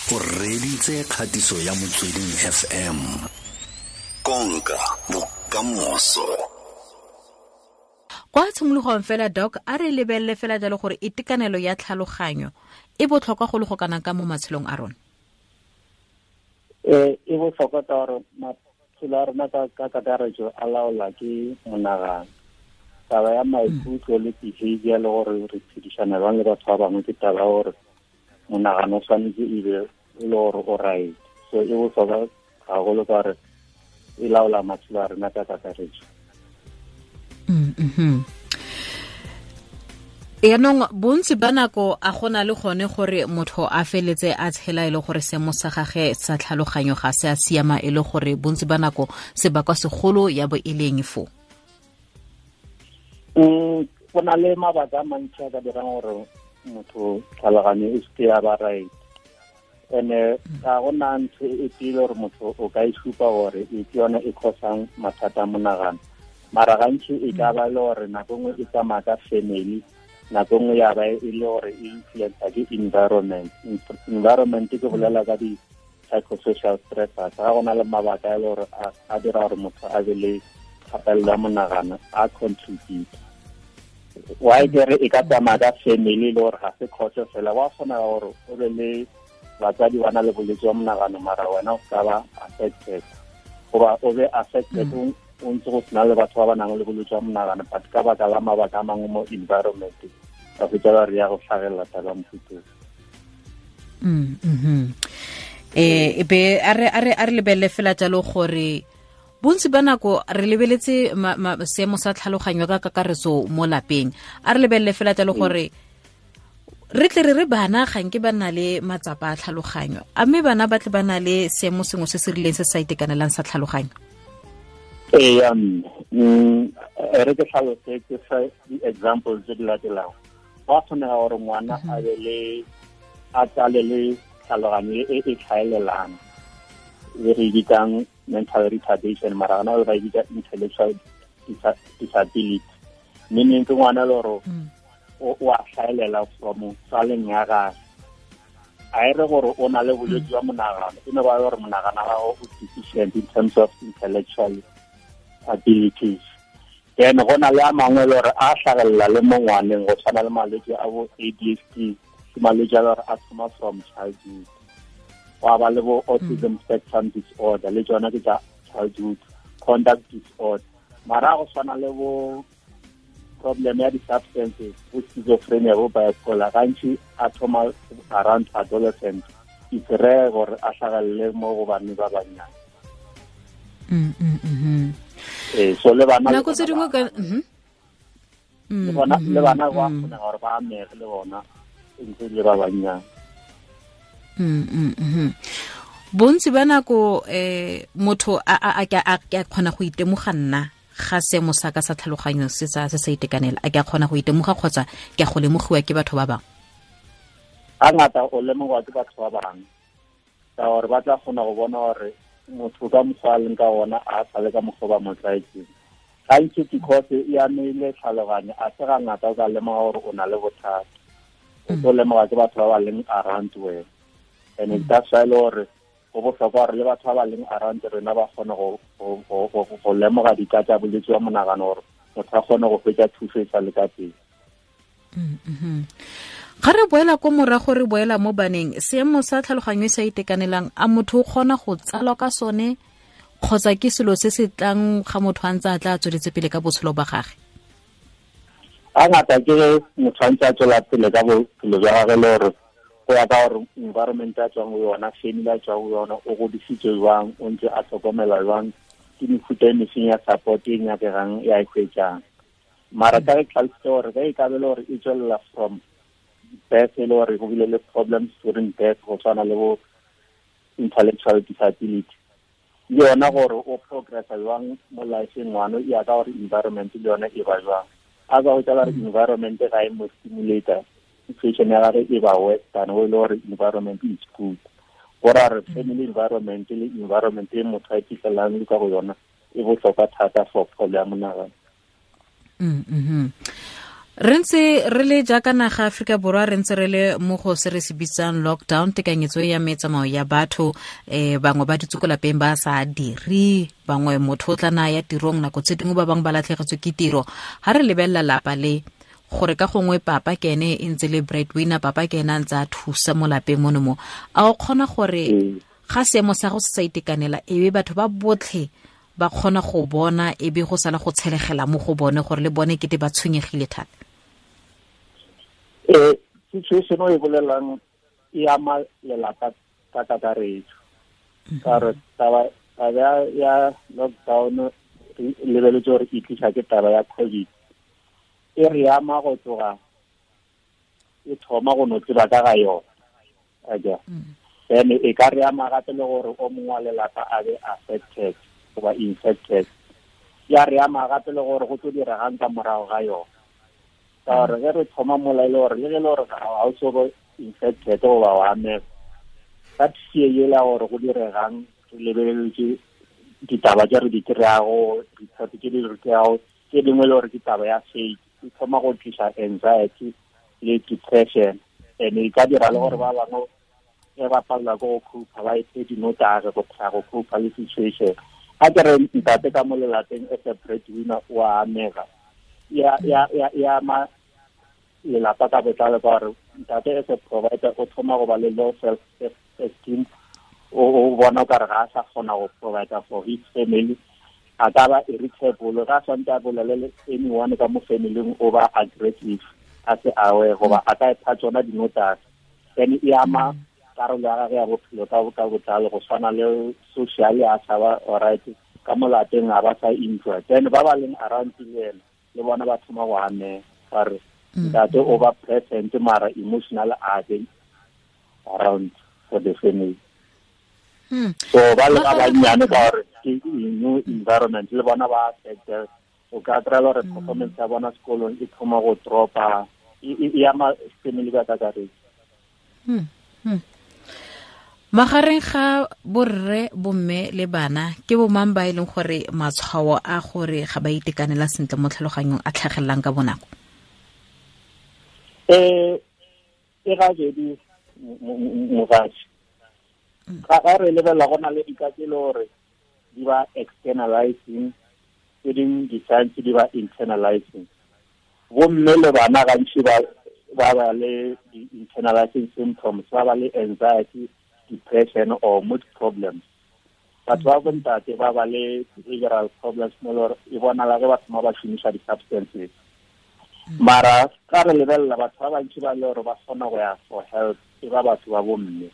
O reditse kgatiso ya Motsweding FM. Konka bokamoso. Kwa tshimologong fela, Doc, a re lebelele fela jalo gore itekanelo ya tlhaloganyo e botlhokwa go le go kana ka mo matshelong a rona. E botlhokwa ka gore maphelo a rona ka kakaretso a laola ke monagano. Taba ya maikutlo le behavior le gore re phedišana jang le batho ba bangwe ke taba ya gore monagano o tshwanetse e be e le gore o right. So e botlhokwa gagolo ka gore e laola matshelo a rena ka kakaretso. Yaanong bontsi ba nako a gona le gone gore motho a feletse a tshela e le gore seemo sa gage sa tlhaloganyo ga se a siama, e le gore bontsi ba nako sebakwa segolo ya bo e leng fo. Go na le mabaka a mantsi a ka dirang gore motho tlhaloganyo e seke ya ba right. And-e ga gona ntho e pele gore motho o ka e supa gore e ke yone e cause-ang mathata a monagano. Mara gantsi e ka ba le gore nako nngwe e tsamaya ka family, nako nngwe ya ba e le gore e influencer ke environment. Environment ke bolela ka di-psychosocial stressors. Ga go na le mabaka a le gore a dira gore motho a be le kgatelelo ya monagano, a contribute. Why ke re e ka tsamaya ka family le gore ga se cause fela, wa kgona gore o be le batsadi ba na le bolwetse jwa monagano mara wena o ka ba affected, goba o be affected o ntse go sena le batho ba ba nang le bolwetse jwa monagano, but ka baka la mabaka a mangwe mo environment ba fetsa ba re ya go tlhagelela taba mofuteng. E be a re lebelele fela jalo gore bontsi ba nako re lebeletse seemo sa tlhaloganyo ka kakaretso mo lapeng. A re lebelele fela jalo gore re tle re re bana ga nke ba na le matsapa a tlhaloganyo, a mme bana ba tle ba na le seemo sengwe se se rileng se sa itekanelang sa tlhaloganyo. Ee, re ke tlhalose ke fa di-examples tse di latelang. Go a kgonega gore ngwana a be le a tsale le tlhaloganyo e e tlhaelelang, e re bitsang mental retardation, mara gona ba e bitsa intellectual disability. Meaning ke ngwana le gore o a tlhaelela from tsaleng ya gagwe. A e re gore o na le bolwetse jwa monagano, e ne ba gore monagano wa gago o deficient in terms of intellectual abilities. Then go na le a mangwe le gore a tlhagelela le mo ngwaneng, go tshwana le malwetse a bo ADHD, ke malwetse a le gore a thoma from childhood. Wa ba le bo autism spectrum disorder, le tsona ke tsa childhood, conduct disorder. Mara go tshwana le bo problem ya di-substances, bo schizophrenia, bo bipolar, gantsi a thoma around adolescent. It's rare gore a hlagelele mo go banne ba bannyane. So le bana nako tse dingwe ka le bana ba kgona gore ba amege le bona ntse le ba bannyane. Bontsi ba nako motho a kgona go itemoga nna ga seemo sa ka sa tlhaloganyo se sa itekanela, a ke a kgona go itemoga kgotsa ke a go lemogiwa ke batho ba bangwe? Ga ngata o lemogwa ke batho ba bangwe, ka gore ba tla kgona go bona gore motho ka mokgwa a leng ka ona a sa le ka mokgwa ba mo tlwaetseng. Gantsi because e amile tlhaloganyo, a se ga ngata o ka lemoga gore o na le bothata. O tlo lemoga ke batho ba ba leng around wena. And that's why le gore go botlhokwa gore le batho ba ba leng around rena ba kgone go lemoga dika tsa bolwetse jwa monagano, gore motho a kgone go fetsa thuso e sa le ka pele. Ga re boela ko morago, re boela mo baneng, seemo sa tlhaloganyo e sa itekanelang, a motho o kgona go tsalwa ka sone kgotsa ke selo se se tlang ga motho a ntse a tla tsweletse pele ka botshelo ba gagwe? Ga ngata ke motho a ntse a tswela pele ka bophelo jwa gagwe, le gore go ya ka gore environment a tswang go yona, family a tswang go yona, o godisitswe jwang, o ntse a tlhokomela jwang, ke mefuta e mefeng ya support e nyakegang ya e hwetšang. Mara ka re tlhalositse gore ge e ka be le gore e tswelela from birth, e le gore go bile le problems during birth, go tshwana le bo intellectual disability, le yona gore o progressa jwang mo life-eng ngwana, e ya ka gore environment le yona e ba jwang. A ka go tla re environment ga e mo stimulator, situation ya gagwe e ba worse than o e le gore environment is good. Go ra re family environment le environment e motho a iphitlhelang le ka go yona e botlhokwa thata for pholo ya monagano. Re ntse re le jaaka naga Aforika Borwa, re ntse re le mo go se re se bitsang lockdown, tekanyetso ya metsamao ya batho, bangwe ba dutse ko lapeng ba sa dire, bangwe motho o tla na ya tirong nako tse dingwe, ba bangwe ba latlhegetswe ke tiro. Ha re lebelela lapa le, gore ka gongwe papa ke ene e ntse le breadwinner, papa ke ene a ntse a thusa mo lapeng mono mo, a o kgona gore ga seemo sa go se sa itekanela, e be batho ba botlhe ba kgona go bona, e be go sala go tshelegela mo go bone gore le bone kete ba tshwenyegile thata? Situation e bolelang e ama lelapa ka kakaretso. Ka gore taba ya lockdown re lebeletse gore e tlisa ke taba ya COVID, e re ama go tloga e thoma go no tseba ka ga yona. Aja. Then e ka re ama gape le gore o mongwe wa lelapa a be affected goba infected. Ya re ama gape le gore go tlo diregang ka morago ga yona. Ka gore ge re thoma mola e le gore le ge e le gore ga o so go infected goba wa amega, ka fear yela gore go diregang, re lebeletse ditaba tse re di kry-ago, ditshepo tse di re kry-ago, tse dingwe le gore ke taba ya fake, e thoma go tlisa anxiety le depression. And e ka dira le gore ba bangwe ge ba palelwa ke go cope-a, ba iphe dinotagi go try go cope-a le situation. A ke re ntate ka mo lelapeng as a breadwinner o a amega, ya ama lelapa ka botlalo, ka gore ntate as a provider o thoma go ba le low self esteem, o bona o kare ga a sa kgona go provider for his family, a ka ba irritable, ga a swantse a bolele le anyone ka mo family-ing, o ba aggressive, a se aware goba a ka ipha tsona dinotagi. Then e ama karolo ya gagwe ya bophelo ka botlalo, go tshwana le social a sa ba alright, ka mo lapeng ga ba sa enjoy. Then ba ba leng around le ena le bona ba thoma go amega, ba re ntate o ba present mara emotional a be around for the family. So ba le ba bannyane ka gore ke new environment, le bona ba affected. O ka kry-a gore performance ya bona sekolong e thoma go dropa, e ama family ka kakaretso. Magareng ga borre, bomme le bana, ke bo mang ba e leng gore matshwao a gore ga ba itekanela sentle mo tlhaloganyong a tlhagelelang ka bonako? E ga jedi mogatsi. Ga re lebelela go na le dika tse e le gore di ba externalizing, tse dingwe di-signs di ba internalizing. Bomme le bana gantsi ba ba le di-internalizing symptoms, ba ba le anxiety, depression or mood problems. Batho ba bontate ba ba le behavioral problems mo le gore e bonala ge ba thoma ba šomiša di-substances. Mara ka re lebelela batho ba bantši ba le gore ba kgona go ya for help e ba batho ba bomme.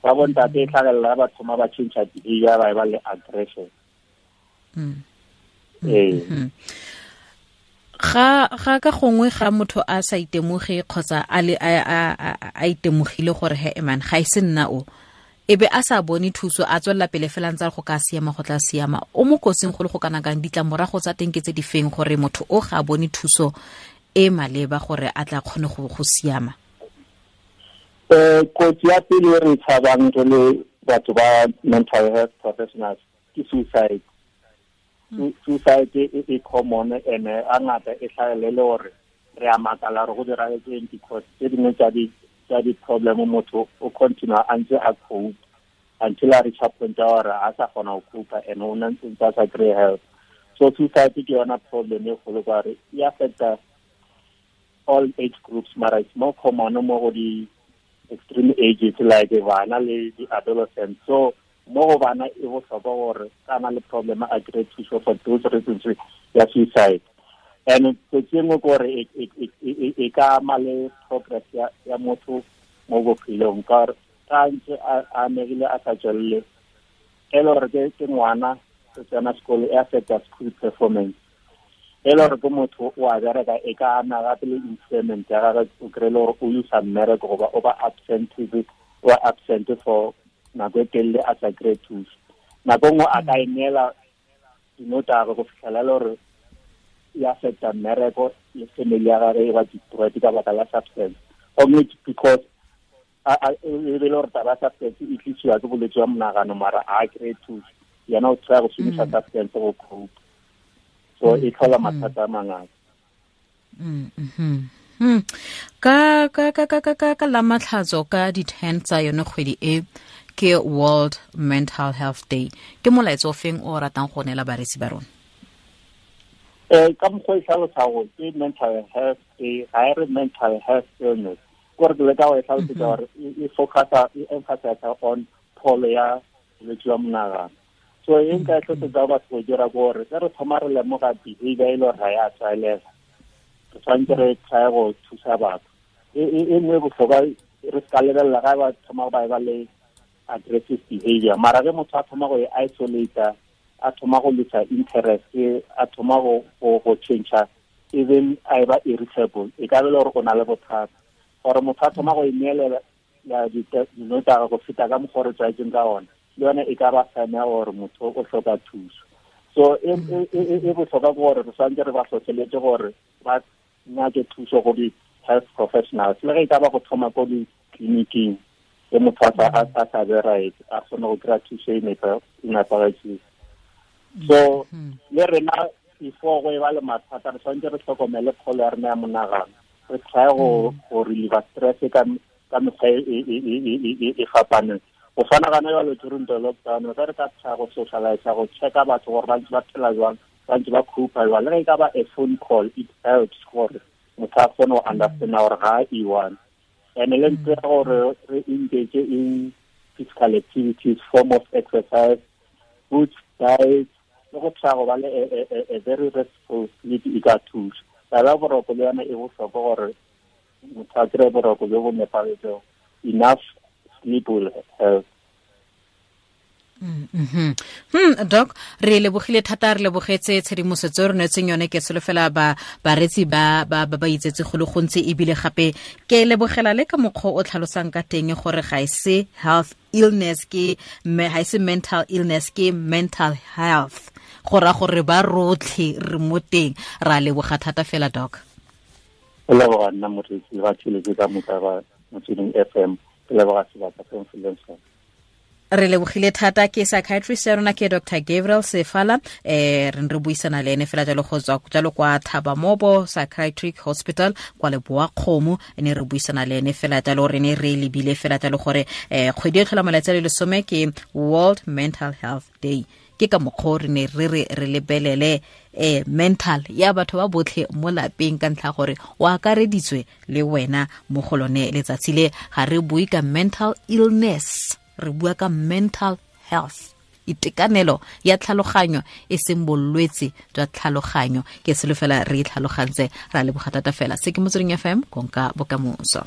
Ba bontate e tlhagelela ba thoma ba change behavior, ba e ba le aggression. Ee. Ga ka gongwe ga motho a sa itemoge kgotsa a le a itemogile gore he man ga e se nna o, e be a sa bone thuso, a tswelela pele fela ntse go ka siama, go tla siama, o mo kotsing go le go kana kang? Ditlamorago tsa teng ke tse di feng gore motho o ga a bone thuso e maleba gore a tla kgone go siama? Kotsi ya pele e re tshabang re le batho ba mental health professionals ke suicide. Suicide e common and a ngata e tlhagelele gore re a makala gore go diragetseng, because tse dingwe tsa di-problem motho o continue a ntse a cope until a reach a point ya gore a sa kgona go cope and o ntse a sa kry help. So suicide ke yona problem e kgolo ka gore e affecta all age groups, mara it's more common mo go di extreme ages like bana le di-adolescents. So mo go bana e bohlokwa gore ka na le problem a kry thuso for those reasons ya suicide. And kotsi e nngwe ke gore e ka ama le progress ya motho mo bophelong, ka gore ka ntse a amegile a sa tswelele, e le gore ke ngwana o tsena sekolo, e affecta school performance. E le gore ke motho o a bereka, e ka ama gape le employment ya gagwe, o kry-e le gore o lose mmereko goba o ba absent, o absent for nako e telele a sa kry-e thuso. Nako nngwe a ka e neela dinotagi go fitlhela le gore e affecta mmereko le family ya gagwe e ba destroyed ka baka la substance. Gomme because e be le gore taba ya substance e tlisiwa ke bolwetse jwa monagano, mara a kry-e thuso, yena o try go šomiša substance go cope. So e tlhola mathata a mangata. Ka ka ka ka ka ka la matlhatso ka di 10 tsa yone kgwedi e ke World Mental Health Day. Ke molaetsa o feng o ratang go neela bareetsi ba rona? Ka mokgwa e tlhalosa gore ke mental health day, ga e re mental health illness. Kore ke leka go e tlhalosetsa gore e focusa, e emphasize on pholo ya bolwetse jwa monagano. So e nka e tlhosetsa batho go dira ke gore ge re thoma re lemoga behavior e le gore ga ya tlwaelega, re tshwanetse re try go thusa batho. E nngwe e botlhokwa re se ka lebelela ga ba thoma ba ba le aggressive behavior, mara ge motho a thoma go e isolate, a thoma go lose interest, a thoma go change, even a ba irritable, e ka be le gore o na le bothata. Gore motho a thoma go ineelela dinotagi go feta ka mokgwa o re tlwaetseng ka ona, le yone e ka ba sign ya gore motho o hloka thuso. So e botlhokwa ke gore re tshwanetse re ba hlohleletse gore ba nyake thuso go di-health professionals, le ge e ka ba go thoma ko ditleliniking ge motho a sa be right, a kgone go kry-a thuso e nepagetseng. So le rena before go e ba le mathata, re tshwanetse re tlhokomele pholo ya rena ya monagano, re try go reliever stress ka mekgwa e fapaneng. Go tshwana gana jalo during the lockdown, re ka try go socialize, go checka batho gore ba ntse ba phela jwang, ba ntse ba cope jwang. Le ge e ka ba a phone call, it helps gore motho a kgone go understand gore ga a e-one. And le ntse gore re engage in physical activities, form of exercise, good diet, le go try go ba le a very restful sleep e ka thusa. Taba ya boroko le yona e bohlokwa gore motho a kry-e boroko jo bo nepagetseng. Enough sleep will help. Doc, re lebogile thata, re lebogetse tshedimosetso re neetseng yone. Ke solofela ba baretsi ba ba ba itsetse go le gontsi, ebile gape ke lebogela le ka mokgwa o tlhalosang ka teng gore ga e se health illness, ke ga e se mental illness, ke mental health. Go ra gore ba rotlhe re mo teng. Ra leboga thata fela, Doc. Ke leboga nna moreetsi ba tsheletse ka moka ba Motsweding FM. Ke leboga sebaka se mfileng sona. Re lebogile thata. Ke psychiatrist ya rona ke Dr. Gabriel Sefala, re re buisana le ene fela jalo go tswa jalo kwa Thabamobo Psychiatric Hospital kwa Leboa-Kgomo. Ne re buisana le ene fela jalo, re ne re lebile fela jalo gore kgwedi e tlhola malatsi a le 10 ke World Mental Health Day. Ke ka mokgwa re ne re re lebelele mental ya batho ba botlhe mo lapeng, ka ntlha gore o akareditswe le wena mo go lone letsatsi le. Ga re bue ka mental illness, re bua ka mental health, itekanelo ya tlhaloganyo e seng bolwetse jwa tlhaloganyo. Ke solofela re tlhalogantse. Ra leboga thata fela. Se ke Motsweding FM, konka bokamoso.